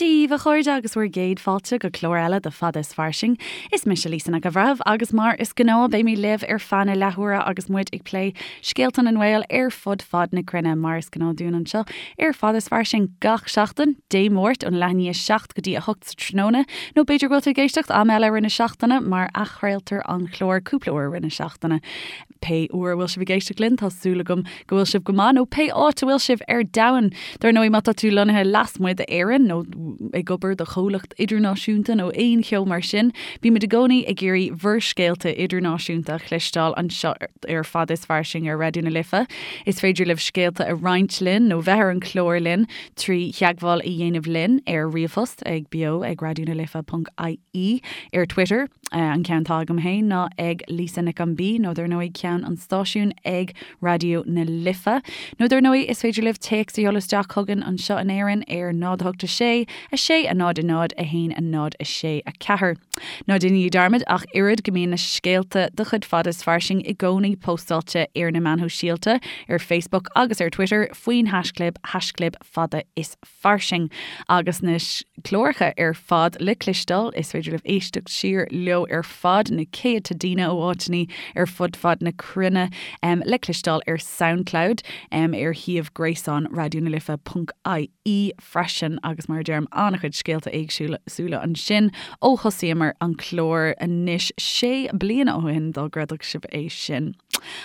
Dia daoibh a chairde agus bhur gcéad fáilte go clár eile de Fada is Fairsing. Is mise Lisa Nic an Bhreithimh agus mar is gnáth beidh mé libh ar feadh na leathuaire agus muid ag plé scéalta na nGael ar fud fad na cruinne mar is gnáth dúinn anseo ar Fada is Fairsing gach seachtain, Dé Máirt ón leath i ndiaidh 7 go dtí 8 sa tráthnóna nó b'fhéidir go bhfuil tú ag éisteacht am eile i rith na seachtaine mar athchraoltar an clár cúpla uair i rith na seachtaine. Pé uair a bhfuil sibh ag éisteacht linn, tá súil agam go bhfuil sibh go maith, nó pé áit a bhfuil sibh ar domhan. Dar ndóigh, má tá tú lonnaithe lasmuigh d'Éirinn nó ag obair do chomhlacht idirnáisiúnta nó aon cheo mar sin, bímid i gcónaí ag iarraidh bhur scéalta idirnáisiúnta a chloisteáil anseo ar Fada is Fairsing ar Raidió na Life. Is féidir libh scéalta a roinnt linn nó bheith ar an chlár linn trí theagmháil a dhéanamh linn ar ríomhphost ag beo ag raidionalife.ie, ar Twitter, An ceann atá agam féin ná ag Lisa Nic an B nó dar ndóigh ceann an stáisiúin ag Raidió na Life. Nó dar ndóigh is féidir libh téacs a sheoladh isteach chugainn anseo in Éirinn ar 0 8 6 6 0 0 1 0 6 4. Ná déanaigí dearmad ach oiread go mbíonn na scéalta de chuid Fada is Fairsing i gcónaí póstáilte ar na meáin shóisialta, ar Facebook agus ar Twitter faoin haischlib, haischlib fada is fairsing agus na cláracha ar fad le cloisteáil. Is féidir libh éisteacht siar leo ar fad, na céadta daoine ó áiteanna ar fud fad na cruinne le cloisteáil ar Soundcloud, ar shuíomh gréasáin Raidió na Life ponc ie freisin agus mar a deirim an-chuid scéalta éagsúla ansin ó thosaíomar an clár anois sé bliana ó shin dá gcreidfeadh sibh é sin.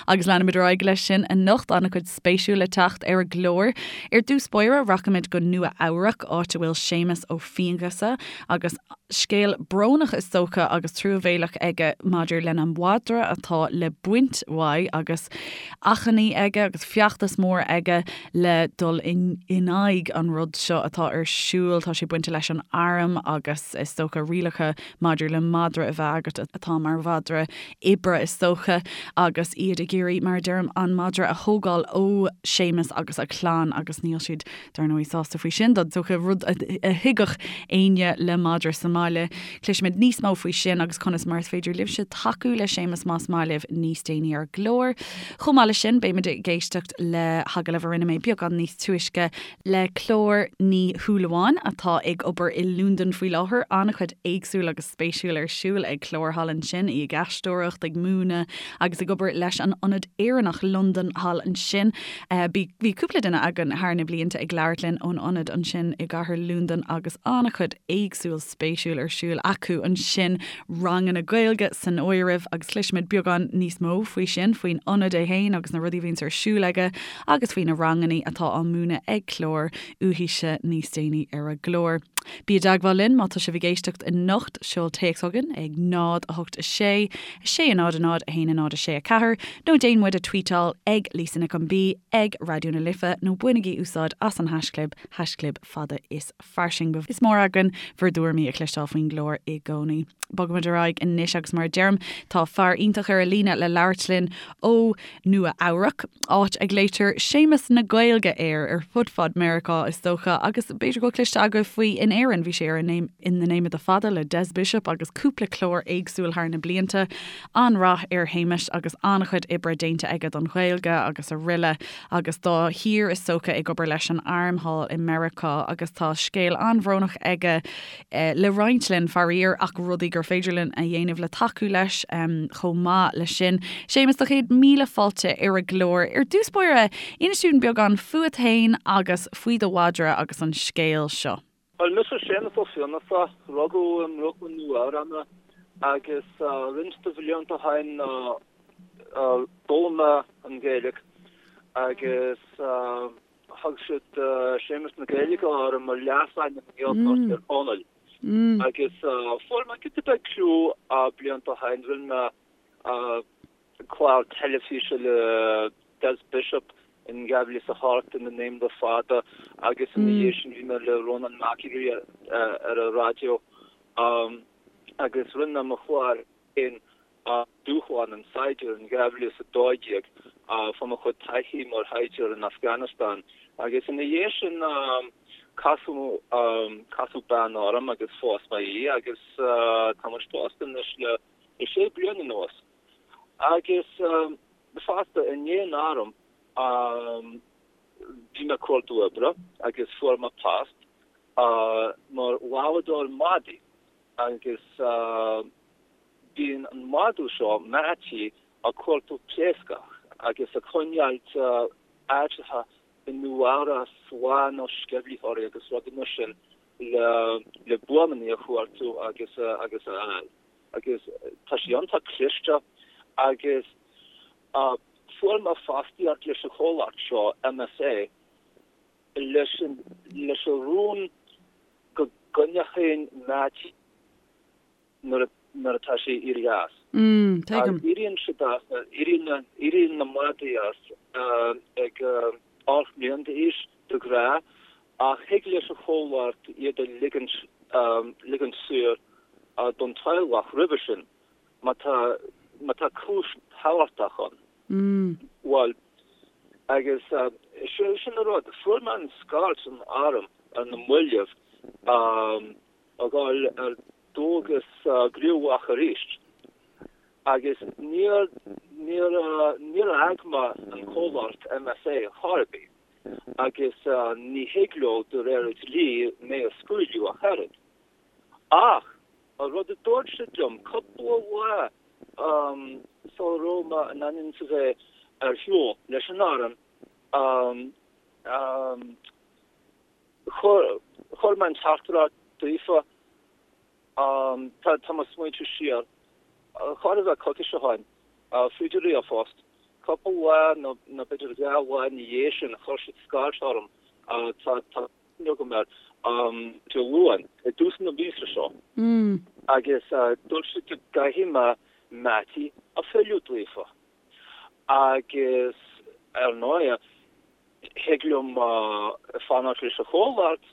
Agus leanfaimid ar aghaidh leis sin anocht, an-chuid spéisiúil le teacht ar an gclár. Ar dtús báire, rachaimid go Nua Eabhrac, áit a bhfuil Séamus Ó Fianghusa agus scéal brónach is dócha agus truamhéalach aige maidir lena mhadra atá le baint uaidh agus achainí aige agus feachtas mór aige le dul in aghaidh an rud seo atá ar siúl. Tá sé bainte leis an arm agus is dócha rialacha maidir le madra a bheith agat atá mar mhadra oibre is dócha, agus iad ag iarraidh, mar a deirim, an madra a thógáil ó Séamus agus a chlann agus níl siad, dar ndóigh, sásta faoi sin, is dócha, rud a thuigfeadh éinne le madra sa mbaile. Cloisfimid níos mó faoi sin agus conas mar is féidir libhse tacú le Séamus más maith libh níos déanaí ar an gclár. Chomh maith leis sin, beimid ag éisteacht le hagallamh a rinne mé beagán níos túisce le Clár Ní Shúilleabháin atá ag obair i Londain faoi láthair. An-chuid éagsúil agus spéisiúil ar siúl ag Clár thall ansin, í ag aisteoireacht, ag múineadh agus ag obair leis an Ionad Éireannach Londain thall ansin. Bhí cúpla duine againn thar na blianta ag labhairt linn ón ionad ansin i gcathair Londain agus an-chuid éagsúil spéisiúil ar siúl acu ansin, ranganna Gaeilge san áireamh agus cloisfimid beagán níos mó faoi sin, faoin ionad é féin agus na rudaí a bhíonns ar siúl aige agus faoi na ranganna atá á múineadh ag Clár uaithise níos déanaí ar an gclár. Bí i dteagmháil linn má tá sibh ag éisteacht anocht, seol téacs chugainn ag 0 8 6 6 0 0 1 0 6 4 nó déan muid a tweetáil ag Lisa Nic an B ag Raidió na Life nó bainigí úsáid as an haischlib, haischlib fada is fairsing. Is mór againn bhur dtuairimí a chloisteáil faoin gclár i gcónaí. Bogaimid ar aghaidh anois agus mar a deirim, tá fear iontach ar an líne le labhairt linn ó Nua Eabhrac, áit a nglaoitear Séamus na Gaeilge air ar fud fad Meiriceá is dócha agus b'fhéidir go bhfuil cloiste agaibh faoi in Éirinn, bhí sé ar In the Name of the Fada le Des Bishop agus cúpla clár éagsúil thar na blianta. An-rath ar Shéamus agus an-chuid oibre déanta aige don Ghaeilge agus araile agus dá thír is dócha ag obair leis an arm thall i Meiriceá agus tá scéal an-bhrónach aige le roinnt linn, faraor, ach rudaí gur féidir linn a dhéanamh le tacú leis chomh maith leis sin. Séamus, do chéad míle fáilte ar an gclár. Ar dtús báire, inis dúinn beagán fúat féin agus faoi do mhadra agus an scéal seo. Bhuel, mise Séamus Ó Fiannachta, rugadh i mBrooklyn, Nua Eabhrac mé agus roinnt de bhlianta ó shin d'fhoghlaim mé an Ghaeilge agus thug siad Séamus na Gaeilge orm mar leasainm i nGaeltacht Thír Chonaill. Agus fuair mé giota beag clú blianta ó shin, rinne mé clár teilifíse le Des Bishop in 2008 In the Name of the Fada agus ina dhiaidh sin bhí mé le Rónán McAleer ar an raidió agus rinne mé mo chlár féin Dúshlán an tSaighdiúra in 2012 fá mo chuid taithí mar shaighdiúir in Afghanistan agus ina dhiaidh sin casadh casadh bean orm agus phós mé í agus tá muid pósta anois le sé bliana anuas. Agus fosta i ndiaidh an airm bhí mé ag cuardú oibre agus fuair mé post mar. lámhadóir madaí agus bíonn an madadh seo, Mattie, ag cuartú pléascach agus ag coinneáilt áiteacha i Nua-Eabhrac slán ó sceimhlitheoirí agus rudaí mar sin le buamannaí a chuartú agus a fháil. Agus tá sé iontach cliste agus fuair mé fostaíocht leis an chomhlacht seo, MSA, leis an leis an rún go gcoinneochainn Mattie nuair nuair atá sé ag éirí as. Mm, tuigim. Éiríonn siad as, éiríonn éiríonn na madaí as ag 8 mbliana d'aois de ghnáth ach thig leis an chomhlacht iad a ligint ligint saor don teaghlach roimhe sin má tá má tá cúis thábhachtach ann. Bhuel, agus sin an rud, fuair mé an scairt ón arm ar na mallaibh a dhul ar dualgas gníomhach arís agus níor, níor, níor fhág mé an comhlacht MSA chor ar bith agus ní thig leo de réir an dlí mé a scaoileadh ach oiread. Ach an rud a dúirt siad liom cúpla lá sula raibh mé in ainm is a bheith ar shiúl leis an arm, chuir mé an teachtaireacht daofa, tá mé ag smaointiú siar, chóir a bheith coicís ó shin, fríd an ríomhphost, cúpla lá nó b'fhéidir dhá lá ina dhiaidh sin, chuir siad scairt orm, tá. agam air Dé Luain i dtús na míosa seo agus dúirt siad go gcaithfidh mé Mattie a fhilleadh daofa agus ar ndóigh thig liom fanacht leis an chomhlacht,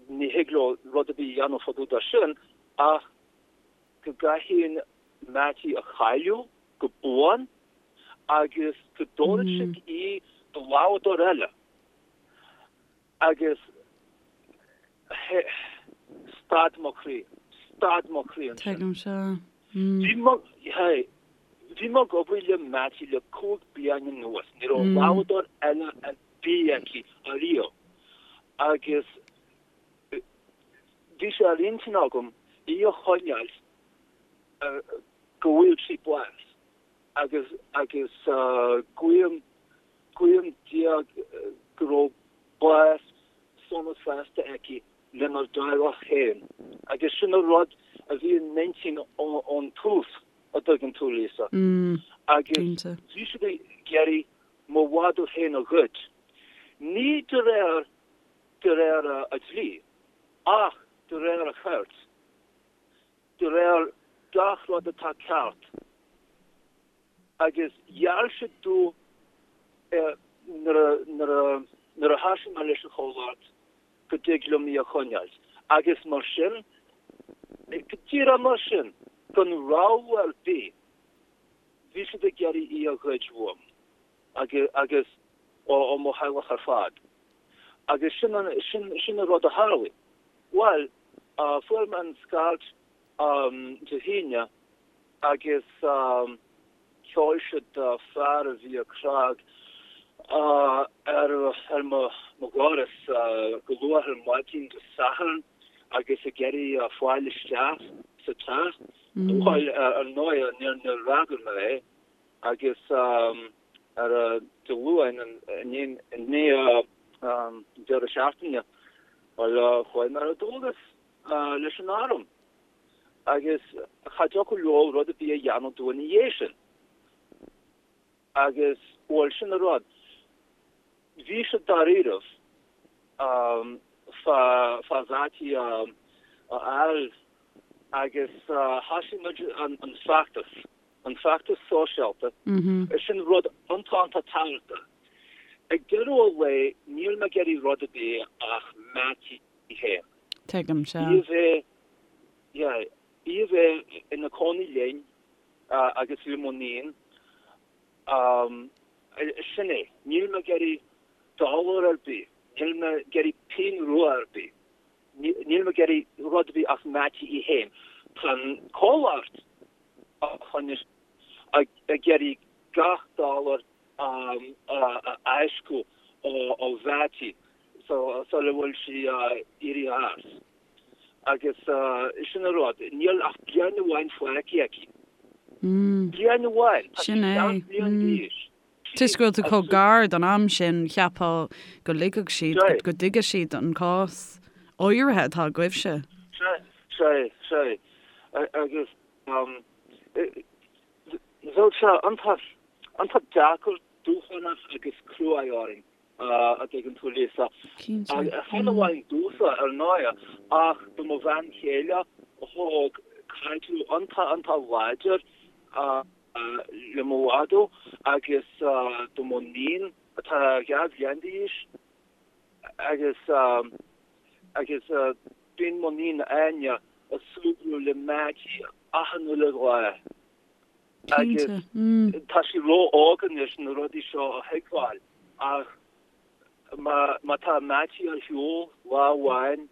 ní thig leo rud ar bith a dhéanamh fá dtaobh de sin ach go gcaithfinn Mattie a chailleadh go buan agus go dtabharfaidh siad í do lámhadóir eile. Agus stad mo chroí, stad mo chroí ansin. Tuigim seo. Bhí mo, hey, bhí mé ag obair le Mattie le 5 bliana anuas, ní raibh lámhadóir eile ar bith aici ariamh. Agus bhí sé ar intinn agam í a choinneáil go bhfuil sí bás agus, agus guím, Guím Dia go raibh bás sona sásta aici lenár dteaghlach féin agus sin an rud a bhí in m'intinn ón tús, a dtuigeann tú, Lisa. Agus bhí siad ag iarraidh mo mhadadh féin a ghoid. Ní de réir de réir a dlí, ach de réir a chirt, de réir gach rud atá ceart. Agus gheall siad domh nuair a thosaigh mé leis an chomhlacht go dtig liom í a choinneáil. Agus mar sin, go díreach mar sin, gan rabhadh ar bith, bhí siad ag iarraidh í a ghoid uaim agus ó mo theaghlach ar fad. Agus sin an rud a tharlaigh. Bhuel, fuair mé an scairt Dé hAoine agus sheol siad fear a bhí ag cnag ar mo dhoras go luath ar maidin Dé Sathairn agus ag iarraidh fáil isteach sa teach. Bhuel, ar ndóigh, níor fhreagair mé é agus ar Dé Luain, i ndiaidh an deireadh seachtaine, bhuel, chuaigh mé ar dualgas leis an arm. Agus cha dtiocfadh leo rud ar bith a dhéanamh domh ina dhiaidh sin. Agus, bhuel, sin an rud. Bhí siad dáiríribh fá fá Mhattie a fháil agus thosaigh muid an feachtas, an feachtas sóisialta. Sin rud iontach iontach tábhachtach. Ag deireadh an lae níl mé ag iarraidh rud ar bith ach Mattie féin. Tuigim, sea. Í a bheith, yeah, í a bheith ina cónaí linn agus le mo níon, sin é. Níl mé ag iarraidh dollar ar bith, níl mé ag iarraidh pingin rua ar bith, níl mé ag iarraidh rud ar bith ach Mattie í féin. Tá an comhlacht a choinnigh ag iarraidh gach dollar a fháisceadh ó Mhattie sula bhfuil sí éirithe as. Agus sin an rud, níl ach bliain amháin fágtha aici. Bliain amháin! Tá sí 7 mbliana d'aois. Toisc go bhfuil tú chomh gar don am sin, cheapfá go ligfeadh siad, go dtuigfeadh siad an cás áirithe atá agaibhse. Sea, sea, sea. Agus bheadh sé iontach, iontach deacair, dúshlánach agus cruaidh orainn, a dtuigeann tú, Lisa. Cinnte. Chan amháin domhsa, ar ndóigh, ach do mo bhean chéile a thóg caidreamh iontach, iontach láidir le mo mhadadh agus do mo níon atá 2 bhliain d'aois agus agus bíonn mo níon Áine ag súgradh le Mattie achan uile lá agus tá sí ró-óg anois na rudaí seo a thuigbheáil ach má má tá Mattie ar shiúl lá amháin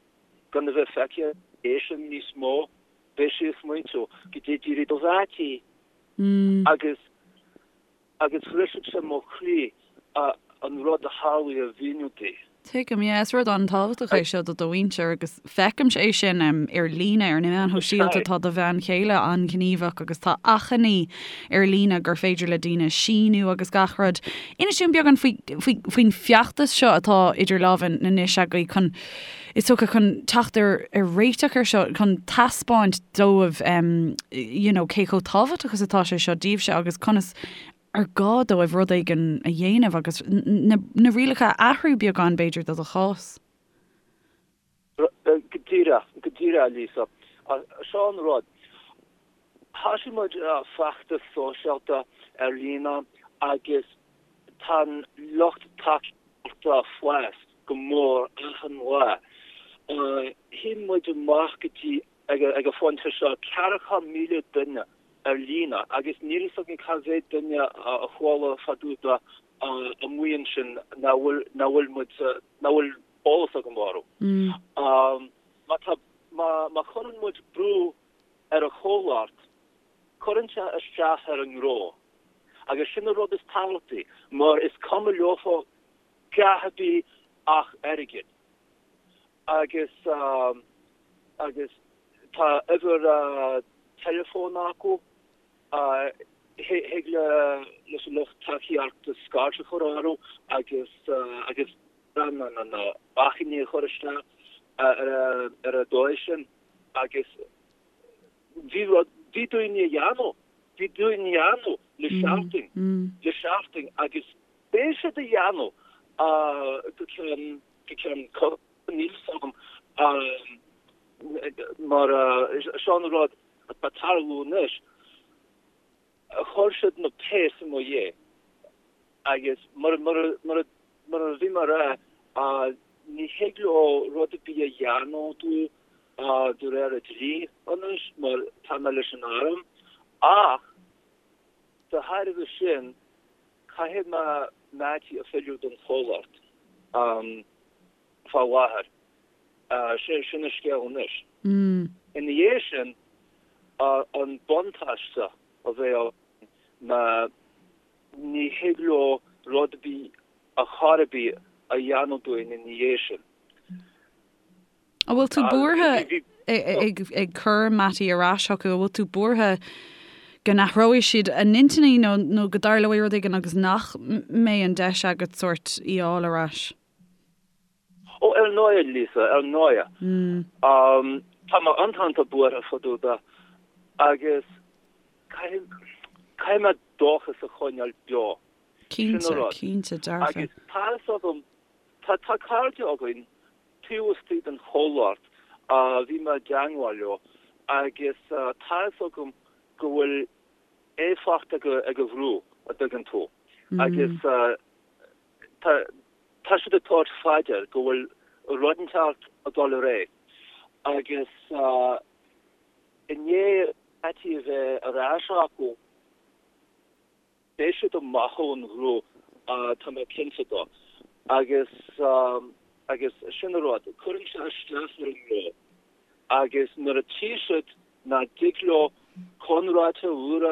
gan a bheith feicthe aici níos mó Beidh sí ag smaointiú goidé d'éirigh do Mhattie agus agus bhrisfeadh sé mo chroí an rud a tharlaigh a mhíniú di. Tuigim, yeah. Is rud an-tábhachtach é seo do do mhuintir agus feicimse é sin ar líne, ar na meáin shóisialta, tá do bhean chéile an-ghníomhach agus tá achainí ar líne gur féidir le daoine síniú agus gach rud. Inis dúinn beagán faoi, faoi, faoin feachtas seo atá idir lámha anois agaibh chun is dócha, chun teacht ar réiteach ar seo, chun taispeáint dóibh you know cé chomh tábhachtach is atá sé seo daoibhse agus conas ar gá dóibh rud éigin a dhéanamh agus na na rialacha a athrú beagán b'fhéidir do do chás. Go díreach, go díreach Lisa. Seo an rud. Thosaigh muid feachtas sóisialta ar líne agus tá an lucht tacaíochta ag fás go mór achan lá. Shín muid amach go dtí, ag an phointe seo, 40,000 duine ar líne agus níl fhios againn cá mhéad duine a chuala fá dtaobh de amuigh ansin nach bhfuil, nach bhfuil muid, nach bhfuil eolas agam orthu. Má tá, má chuireann muid brú ar an chomhlacht, cuireann sé isteach ar an ngnó. Agus sin an rud is tábhachtaí, mar is cuma leofa gach ar bith ach airgead. Agus, agus tá uimhir teileafóin acu, thig le, leis an lucht tacaíochta scairt a chur orthu agus, agus na achainí a chur isteach ar an dóigh sin. Agus bhí rud, bhí daoine a dhéanamh, bhí daoine a dhéanamh le seachtain, le seachtain agus beidh siad a dhéanamh go ceann, go ceann coicíse, níl fhios agam mar seo an rud atá ag tarlú anois. Chuir siad na péas i mo dhiaidh agus mar mar a bhí mé a rá, ní thig leo rud ar bith a dhéanamh domh de réir an dlí anois mar tá mé leis an arm ach de thairbhe sin caithfidh mé Mattie a fhilleadh don chomhlacht fá láthair. Sin an scéal anois. Ina dhiaidh sin, an buntáiste a bheidh ann ná ní thig leo rud ar bith ar chor ar bith a dhéanamh dúinn ina dhiaidh sin. An bhfuil tú buartha ag cur Mattie ar ais chucu? An bhfuil tú buartha go n-athróidh siad a n-intinní nó go dtarlóidh rud éigin agus nach mbeidh an deis agat sórt í a fháil ar ais? Ó, ar ndóigh, Lisa, ar ndóigh. Tá mé iontach buartha fá dtaobh de agus caithfidh mé dóchas a choinneáil beo. Sin an rud. Cinnte, cinnte, dearfa. Agus tá fhios agam, tá tá cairde againn taobh istigh den chomhlacht a bhí mé i dteangmháil leo agus tá fhios agam go bhfuil éifeacht ag an bhrú, a dtuigeann tú. Agus tá Tá siad ag tabhairt fá dear go bhfuil rud inteacht ag dul ar aghaidh agus i ndiaidh Mattie a bheith ar ais acu, beidh siad amach ón ghnó, tá mé cinnte de. Agus agus sin an rud, cuireann sé isteach ar an ngnó agus nuair a tchí siad nach dtig leo conraitheoir úr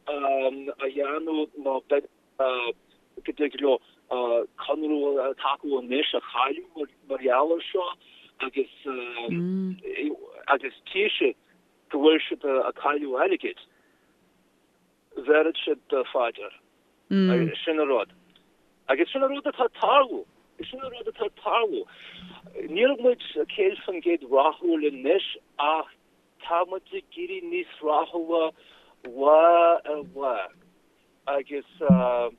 a dhéanamh nó beidh go dtig leo conradh atá acu anois a chailleadh mar gheall air seo agus. Agus tchí siad go bhfuil siad ag cailleadh airgid, bhéarfaidh siad faoi dear. Sin an rud. Agus sin an rud atá ag tarlú. Sin an rud atá ag tarlú. Níl muid 100% rathúil anois ach tá muid ag éirí níos rathúla lá ar lá. Agus tá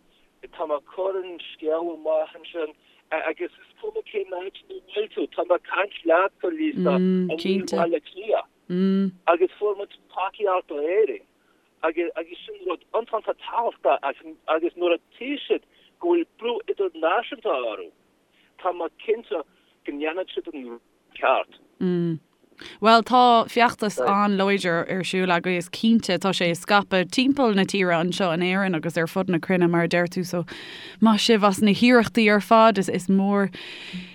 mé ag cur an scéal amach ansin agus is cuma cén áit ina bhfuil tú, tá mé ag caint leatsa, Lisa, i mBaile Átha Cliath. Agus fuair muid tacaíocht ó Éirinn. Agus agus sin rud iontach tábhachtach agus nuair a tchí siad go bhfuil brú idirnáisiúnta orthu, tá mé cinnte go ndéanfaidh siad an rud ceart. Bhuel, tá feachtas an-láidir ar siúl agaibh, is cinnte. Tá sé ag scaipeadh timpeall na tíre anseo in Éirinn agus ar fud na cruinne, mar a deir tú, so maith sibh as na hiarrachtaí ar fad. Is mór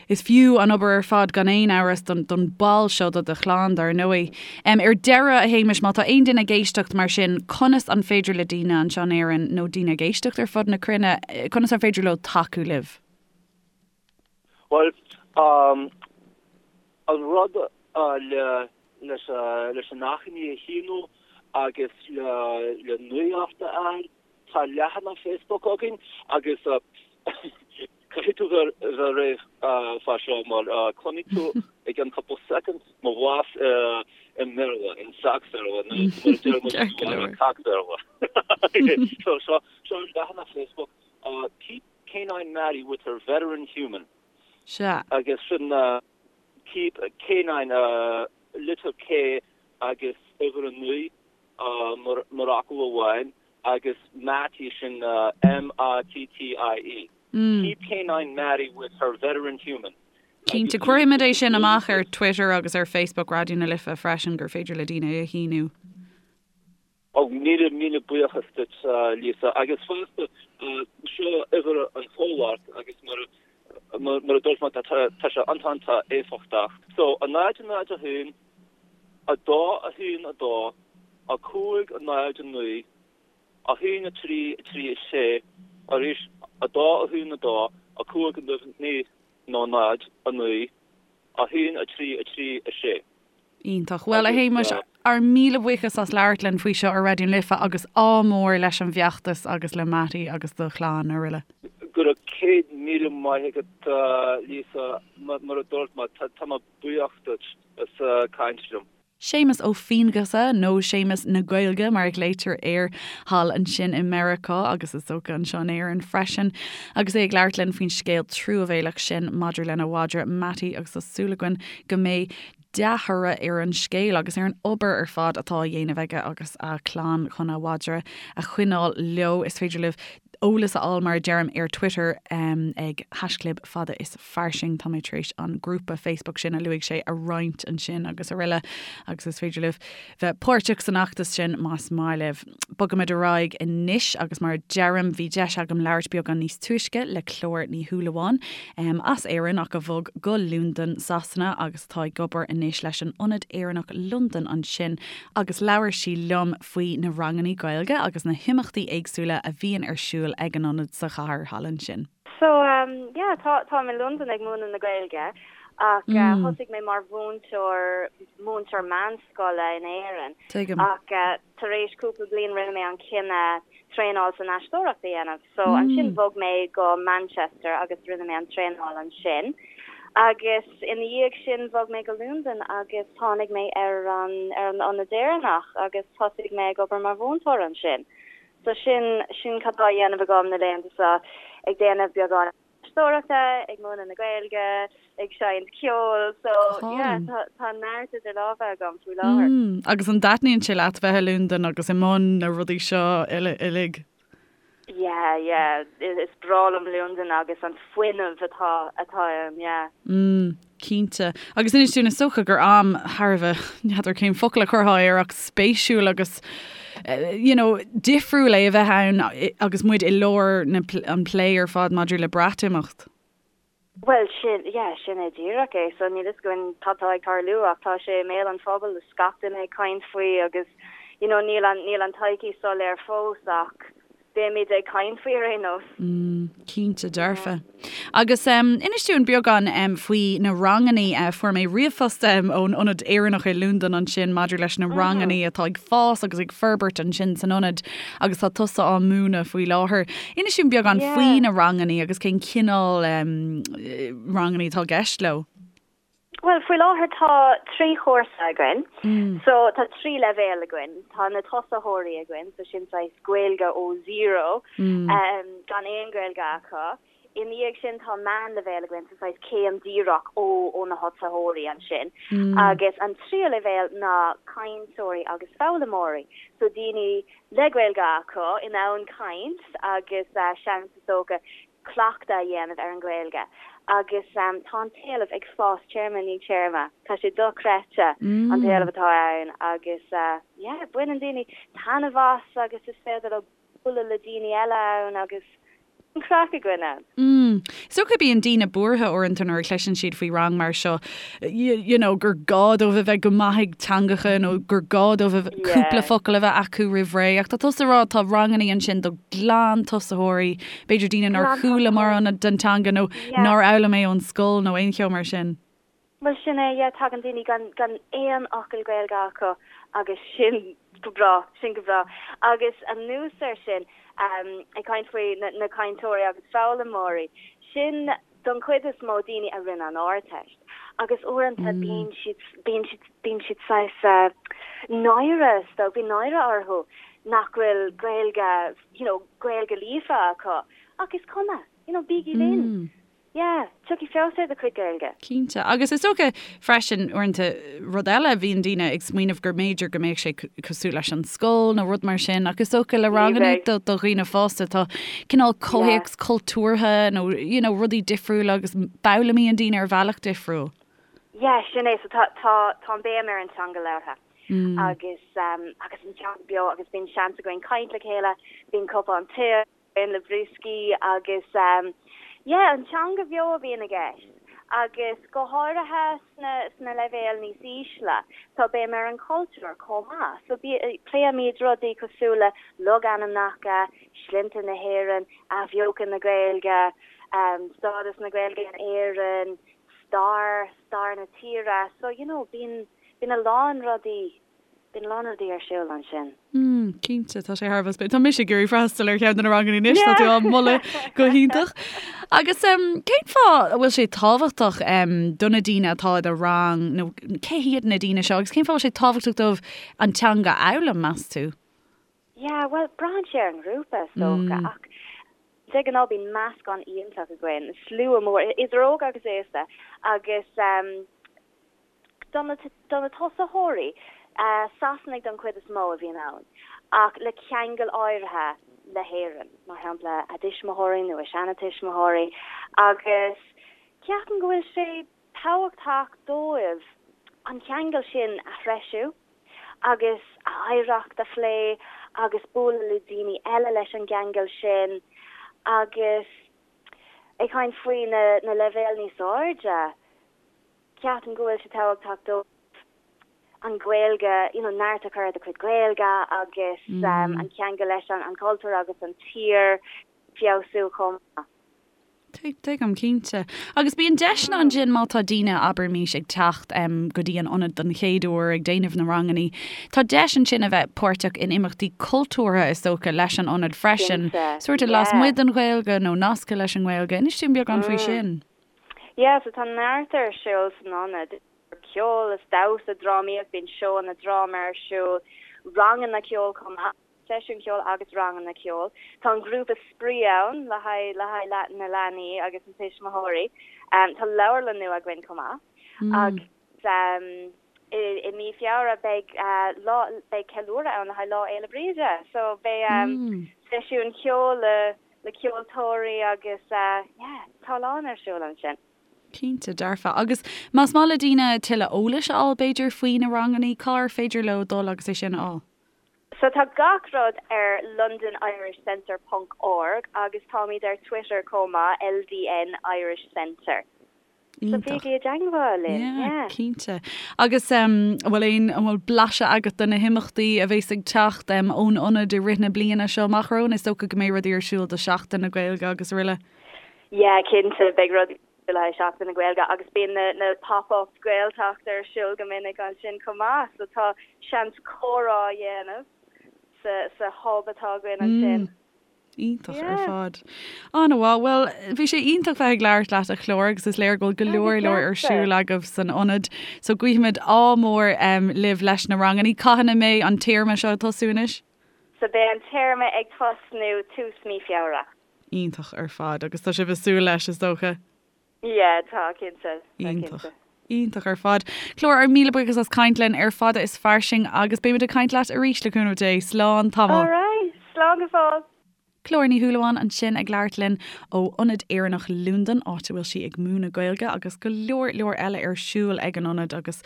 is fiú an obair ar fad gan aon amhras don don ball seo de do chlann, dar ndóigh. Ar deireadh, a Shéamais, má tá aon duine ag éisteacht mar sin, conas an féidir le daoine anseo in Éirinn nó daoine ag éisteacht ar fud na cruinne, conas an féidir leo tacú libh? Bhuel, an rud le leis leis an achainí a shíniú agus le le nuacht a fháil, tá leathanach Facebook againn agus caithfidh tú bheith bheith réidh fá seo mar cluinfidh tú i gceann cúpla soicind mo bhlas i mBéarla, in Sacs-Bhéarla nó mar a deir muid Ceart go leor. Cac-Bhéarla. So seo seo an leathanach Facebook, Keep K9 Mattie with her veteran human. Sea. Agus sin Keep K9 litir K agus uimhir 9 mar fhocal amháin agus Mattie sin M-A-T-T-I-E. Keep K9 Mattie with her veteran human. Cinnte. Cuirfimid é sin amach ar Twitter agus ar Facebook Raidió na Life freisin gur féidir le daoine é a shíniú. Ó, míle, míle buíochas duit, Lisa. Agus fosta, seo uimhir an chomhlacht agus mar, mar a dúirt mé, tá sé iontach éifeachtach. So, 0, 0, 1, 2, 1, 2, 5, 0, 9, 1, 3, 3, 6, arís, 2, 1, 2, 5, 9, nó 0, 9, 1, 3, 3, 6. Iontach. Bhuel, a Shéamais, ár míle buíochas as labhairt linn faoi seo ar Raidió na Life agus ádh mór leis an bhfeachtas agus le Mattie agus do chlann araile. Go raibh 100,000 maith agat, Lisa. Mar a dúirt mé, tá mé buíoch duit as caint liom. Séamus Ó Fianghusa, nó Séamus na Gaeilge mar a ghlaoitear air thall ansin i Meiriceá agus is dócha anseo in Éirinn freisin, agus é ag labhairt linn faoin scéal truamhéalach sin maidir lena mhadra Mattie agus tá súil againn go mbeidh dea-thoradh ar an scéal agus ar an obair ar fad atá á dhéanamh aige agus a chlann chun a mhadra a choinneáil leo. Is féidir libh eolas a fháil, mar a deirim, ar Twitter ag haischlib fada is fairsing. Tá mé tar éis an grúpa Facebook sin a luaigh sé a roinnt ansin agus araile agus is féidir libh bheith páirteach san fheachtas sin más maith libh. Bogaimid ar aghaidh anois agus mar a deirim, bhí deis agam labhairt beagán níos túisce le Clár Ní Shúilleabháin as Éirinn ach a bhog go Londain, Sasana agus atá ag obair anois leis an Ionad Éireannach Londain ansin agus labhair sí liom faoi na rangannaí Gaeilge agus na himeachtaí éagsúla a bhíonn ar siúl ag an ionad sa chathair thall ansin. So yeah, tá, táim i Londain ag múineadh na Gaeilge ach thosaigh mé mar mhúinteoir, múinteoir meánscoile in Éirinn. Tuigim. Ach tar éis cúpla bliain rinne mé an cinneadh traenáil san aisteoireacht a dhéanamh. So ansin bhog mé go Manchester agus rinne mé an traenáil ansin. Agus ina dhiaidh sin bhog mé go Londain agus tháinig mé ar an, ar an Ionad Éireannach agus thosaigh mé ag obair mar mhúinteoir ansin. So sin, sin cad tá á dhéanamh agam na laethanta seo, ag déanamh beagán aisteoireachta, ag múineadh na Gaeilge, ag seinnt ceoil, so yeah, tá, tá neart idir lámha agam faoi láthair. Mm, agus an dtaitníonn sé leat bheith i Londain agus i mbun na rudaí seo uile, uilig? Yeah, yeah, is breá liom Londain agus an fuinneamh atá, atá ann, yeah. Mm. Cinnte. Agus inis dúinn, is dócha gur am thar a bheith, n'fheadar cén focal a chuirfeá air ach spéisiúil agus you know, difriúil é a bheith ann agus muid i lár na, an plé ar fad maidir le Breatimeacht. Bhuel, sin, yeah, sin é díreach é. So níl fhios againn cad tá ag tarlú ach tá sé i mbéal an phobail, is gach duine ag caint faoi agus you know, níl an, níl an todhchaí soiléir fós ach. Beimid ag caint faoi ar aon nós. Mm, cinnte dearfa. Agus inis dúinn beagán faoi na rangannaí. Fuair mé ríomhphost ón Ionad Éireannach i Londain ansin maidir leis na rangannaí atá ag fás agus ag forbairt ansin san ionad agus tá tusa á múineadh faoi láthair. Inis dúinn beagán faoi na rangannaí agus cén cineál rangannaí atá i gceist leo. Bhuel, faoi láthair tá 3 chúrsa againn. So tá 3 leibhéal againn. Tá na tosaitheoirí againn, so sin saghas Gaeilge ó zero, gan aon Ghaeilge acu. Ina dhiaidh sin tá meánleibhéal againn, so saghas céim díreach ó ó na tosaitheoirí ansin. Agus an tríú leibhéal ná cainteoirí agus foghlaimeoirí, so daoine le Gaeilge acu, in ann caint agus seans is dócha cleachtadh a dhéanamh ar an Ghaeilge agus tá an t-éileamh ag fás téarma i ndiaidh téarma. Tá sé dochreidte an t-éileamh atá ann agus yeah baineann daoine taitneamh as agus is féidir leo bualadh le daoine eile ann agus an craic againn ann. Mm. Is dócha bíonn daoine buartha uaireanta nuair a chloiseann siad faoi rang mar seo, you know, gur gá dóibh a bheith go maith ag teangacha nó gur gá dóibh a bheith cúpla focal a bheith acu roimh ré. Ach tá tusa ag rá tá rangannaí ansin do ghlantosaitheoirí, b'fhéidir daoine nár chuala mórán den teanga nó nár fhoghlaim é ón scoil nó aon cheo mar sin. Bhuel sin é, yeah, tagann daoine gan gan aon fhocal Gaeilge acu agus sin go breá, sin go breá. Agus anuas air sin, ag caint faoi na cainteoirí agus foghlaimeoirí, sin don chuid is mó daoine a rinne an Ardteist agus uaireanta bíonn siad, bíonn siad, bíonn siad saghas náire, is dóigh, bíonn náire orthu nach bhfuil Gaeilge, you know, Gaeilge líofa acu ach is cuma, you know, bígí linn. Yeah, tiocfaidh feabhas ar do chuid Gaeilge. Cinnte. Agus is dócha freisin, uaireanta, rud eile, bhíonn daoine ag smaoineamh gur mb'fhéidir go mbeadh sé cosúil leis an scoil nó rud mar sin ach is dócha le ranganna do dhaoine fásta tá cineál comhthéacs cultúrtha nó you know rudaí difriúla agus foghlaimíonn daoine ar bhealach difriúil. Yeah, sin é. So tá tá tá an béim ar an teanga labhartha agus agus an teanga beo agus bíonn seans againn caint le chéile, bíonn cupán tae againn le brioscaí agus yeah an teanga bheo a bhíonn i gceist agus go háirithe sna sna leibhéil níos ísle tá béim ar an chultúr chomh maith so pléimid rudaí cosúil le logainmneacha, sloinnte na hÉireann, athbheochan na Gaeilge, stádas na Gaeilge in Éirinn, stair, stair na tíre so you know bíonn bíonn a lán rudaí Bíonn a lán rudaí ar siúl ansin. Mm, cinnte, tá sé thar a bheith spéisiúil. Tá mise ag iarraidh freastal ar cheann de na ranganna anois, tá tú á moladh go hiontach. Agus cén fáth a bhfuil sé tábhachtach do na daoine atá i do rang, nó cé hiad na daoine seo, agus cén fáth a bhfuil sé tábhachtach dóibh an teanga a fhoghlaim, meas tú? Yeah, bhuel, braitheann sé ar an ngrúpa, is dócha, ach de ghnáth bíonn meascán iontach againn, slua mór, idir óg agus aosta, agus Do na tosaitheoirí, Sasanaigh don chuid is mó a bhíonn ann, ach le ceangal áirithe le hÉirinn, mar shampla a dtuismitheoirí nó a seanatuismitheoirí, agus ceapaim go bhfuil sé tábhachtach dóibh an ceangal sin a threisiú agus a oidhreacht a phlé agus bualadh le daoine eile leis an gceangal sin agus ag caint faoi na leibhéil níos airde. Ceapaim go bhfuil sé tábhachtach dóibh an Ghaeilge, you know, neart a chur ar do chuid Gaeilge agus an ceangal leis an chultúr agus an tír feabhsú chomh maith. Tuigim, cinnte. Agus bíonn deiseanna ansin má tá daoine, abraimis, ag teacht go dtí an ionad don chéad uair, ag déanamh na rangannaí, tá deis ansin a bheith páirteach in imeachtaí cultúrtha, is dócha, leis an ionad freisin, sórt lasmuigh den Ghaeilge nó nasctha leis an nGaeilge. Inis dúinn beagán faoi sin. Yeah, so tá neart ar siúl san ionad, ceol is damhsa, drámaíocht, bíonn seóanna dráma ar siúl, ranganna ceoil chomh maith, seisiúin cheoil agus ranganna ceoil. Tá an grúpa spraoi ann le haghaidh le haghaidh na leanaí agus na tuismitheoirí. Tá leabharlann nua againn chomh maith agus i mí Feabhra beidh lá beidh ceiliúradh ann le haghaidh Lá Fhéile Bríde. So beidh seisiúin cheoil le le ceoltóirí agus yeah, tá a lán ar siúl ansin. Cinnte, dearfa. Agus más maith le daoine tuilleadh eolais a fháil b'fhéidir faoi na rangannaí, cár féidir leo dul agus é sin a fháil? So tá gach rud ar londonirishcentre ponc org agus táimid ar Twitter chomh maith, LDN Irish Centre. So bígí i dteangmháil linn, yeah. Cinnte. Agus an bhfuil aon, an bhfuil blaiseadh agat de na himeachtaí a bhéas ag teacht ón ionad i rith na bliana seo amach romhainn? Is dócha go mbeidh rudaí ar siúl do Sheachtain na Gaeilge agus araile. Yeah, cinnte, beidh rudaí le haghaidh Seachtain na Gaeilge agus bíonn na na pop-up Gaeltacht ar siúl go minic ansin chomh maith, so tá seans comhrá a dhéanamh sa sa hub atá againn ansin. Iontach ar fad. An-mhaith. Bhuel, bhí sé iontach bheith ag labhairt leat a Chlár agus is léir go bhfuil go leor leor ar siúl agaibh san ionad. So guímid ádh mór libh leis na ranganna. Cathain a mbeidh an téarma seo ag tosú anois? So beidh an téarma ag tosnú tús mí Feabhra. Iontach ar fad. Agus tá sibh ag súil leis, is dócha? Yeah, tá, cinnte. Iontach. Iontach ar fad. Clár, ár míle buíochas as caint linn ar Fada is Fairsing agus beimid ag caint leat arís le cúnamh Dé. Slán tamall. All right. Slán go fóill. Clár Ní Shúilleabháin ansin ag labhairt linn ó Ionad Éireannach Londan, áit a bhfuil sí ag múineadh Gaeilge agus go leor leor eile ar siúl ag an ionad agus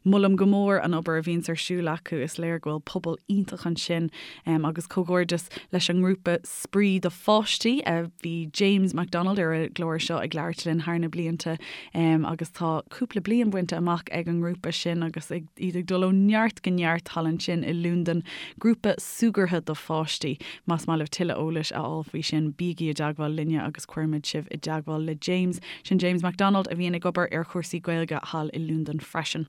molaim go mór an obair a bhíonns ar siúl acu. Is léir go bhfuil pobal iontach ansin agus comhghairdeas leis an ngrúpa Spraoi do Pháistí. Bhí James McDonald ar an gclár seo ag labhairt linn thar na blianta agus tá cúpla bliain bainte amach ag an ngrúpa sin agus iad ag dul ó neart go neart thall ansin i Londain. Grúpa súgartha do pháistí. Más maith libh tuilleadh eolais a fháil faoi sin, bígí i dteagmháil linne agus cuirfimid sibh i dteagmháil le James. Sin James McDonald a bhíonn ag obair ar chúrsaí Gaeilge thall i Londain freisin.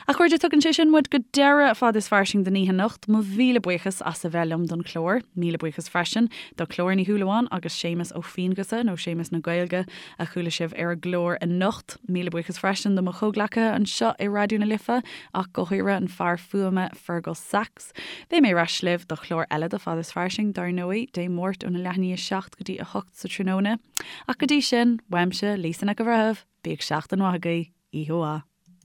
A chairde, tugann sé sin muid go deireadh Fada is Fairsing don oíche anocht. Mo mhíle buíochas as a bheith liom don chlár. Míle buíochas freisin do Chlár Ní Shúilleabháin agus Séamus Ó Fianghusa, nó Séamus na Gaeilge, a chuala sibh ar an gclár anocht. Míle buíochas freisin do mo chomhghleacaithe anseo i Raidió na Life, ach go háirithe an fear fuaime Fergal Sachs. Beidh mé ar ais libh do chlár eile de Fada is Fairsing, dar ndóigh, Dé Máirt óna leath i ndiaidh 7 go dtí 8 sa tráthnóna. Ach go dtí sin, uaimse, Lisa Nic an Bhreithimh, bíodh seachtain mhaith agaibh. Oíche mhaith.